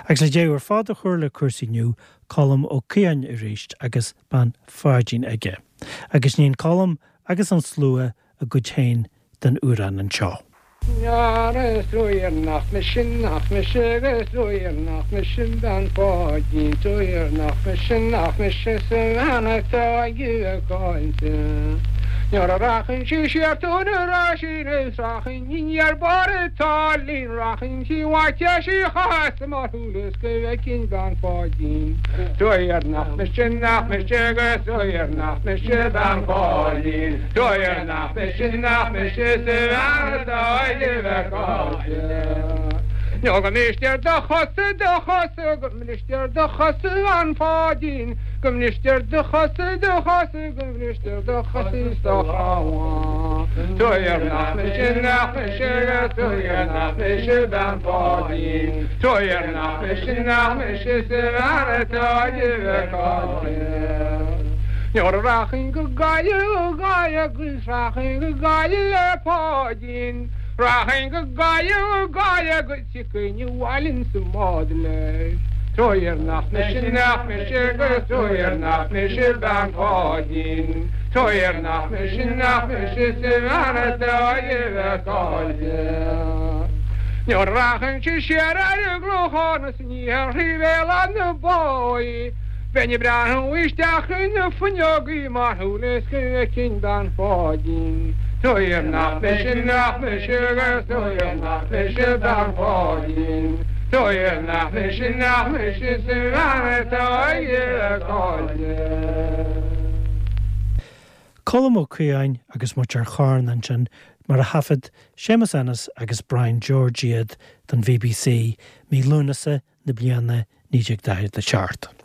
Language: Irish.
Agus le deireadh ar fad a chur le cúrsaí inniu, Colm Ó Caodháin arís agus Bean Pháidín aige. Agus níonn Colm agus an slua a gcuid féin den amhrán anseo. Is nach mise, nach mise, is nach mise bean Pháidín, is nach mise, nach mise sa bhean atá ag caint. Nuair a rachainn sí siar tú na rachainn is rachainn aniar barr an tsáilín rachainn sí uait sí chas mar shúil is go bhfeicfinn bean Pháidín. Is nach mise, nach mise, is nach mise bean Pháidín, is nach mise, nach mise sa bhean atá ag caint. Nó go mbristear do chosa, do chosa, go mbristear do chosa, a bhean Pháidín, go mbristear do chosa, do chosa, go mbristear do chosa is do chrothán. Is nach mise, nach mise, is nach mise bean Pháidín, is nach mise, nach mise sa bhean atá ag caint. Nuair a rachainn go Gaillimh, go Gaillimh agus rachainn go Gaillimh le Páidín, rachainn go Gaillimh, go Gaillimh agus tiocfainn abhaile insa mbád leis. Is nach mise, nach mise, agus is nach mise bean Pháidín, is nach mise, nach mise sa bhean atá ag caint. Nuair a rachainnse siar ar an gClochán is aniar thrí Bhéal Átha na Báighe, Bheinn ag breathnú isteach i na fuinneogaí mar shúil is go bhfeicfinn bean Pháidín. Is nach mise, nach mise, agus is nach mise bean Pháidín. Is nach mise, nach mise sa bhean atá ag caint. Colm Ó Caodháin agus muid ar Charna ansin mar a thaifead Séamus Ennis agus Brian George iad don BBC mí Lúnasa na bliana 1947.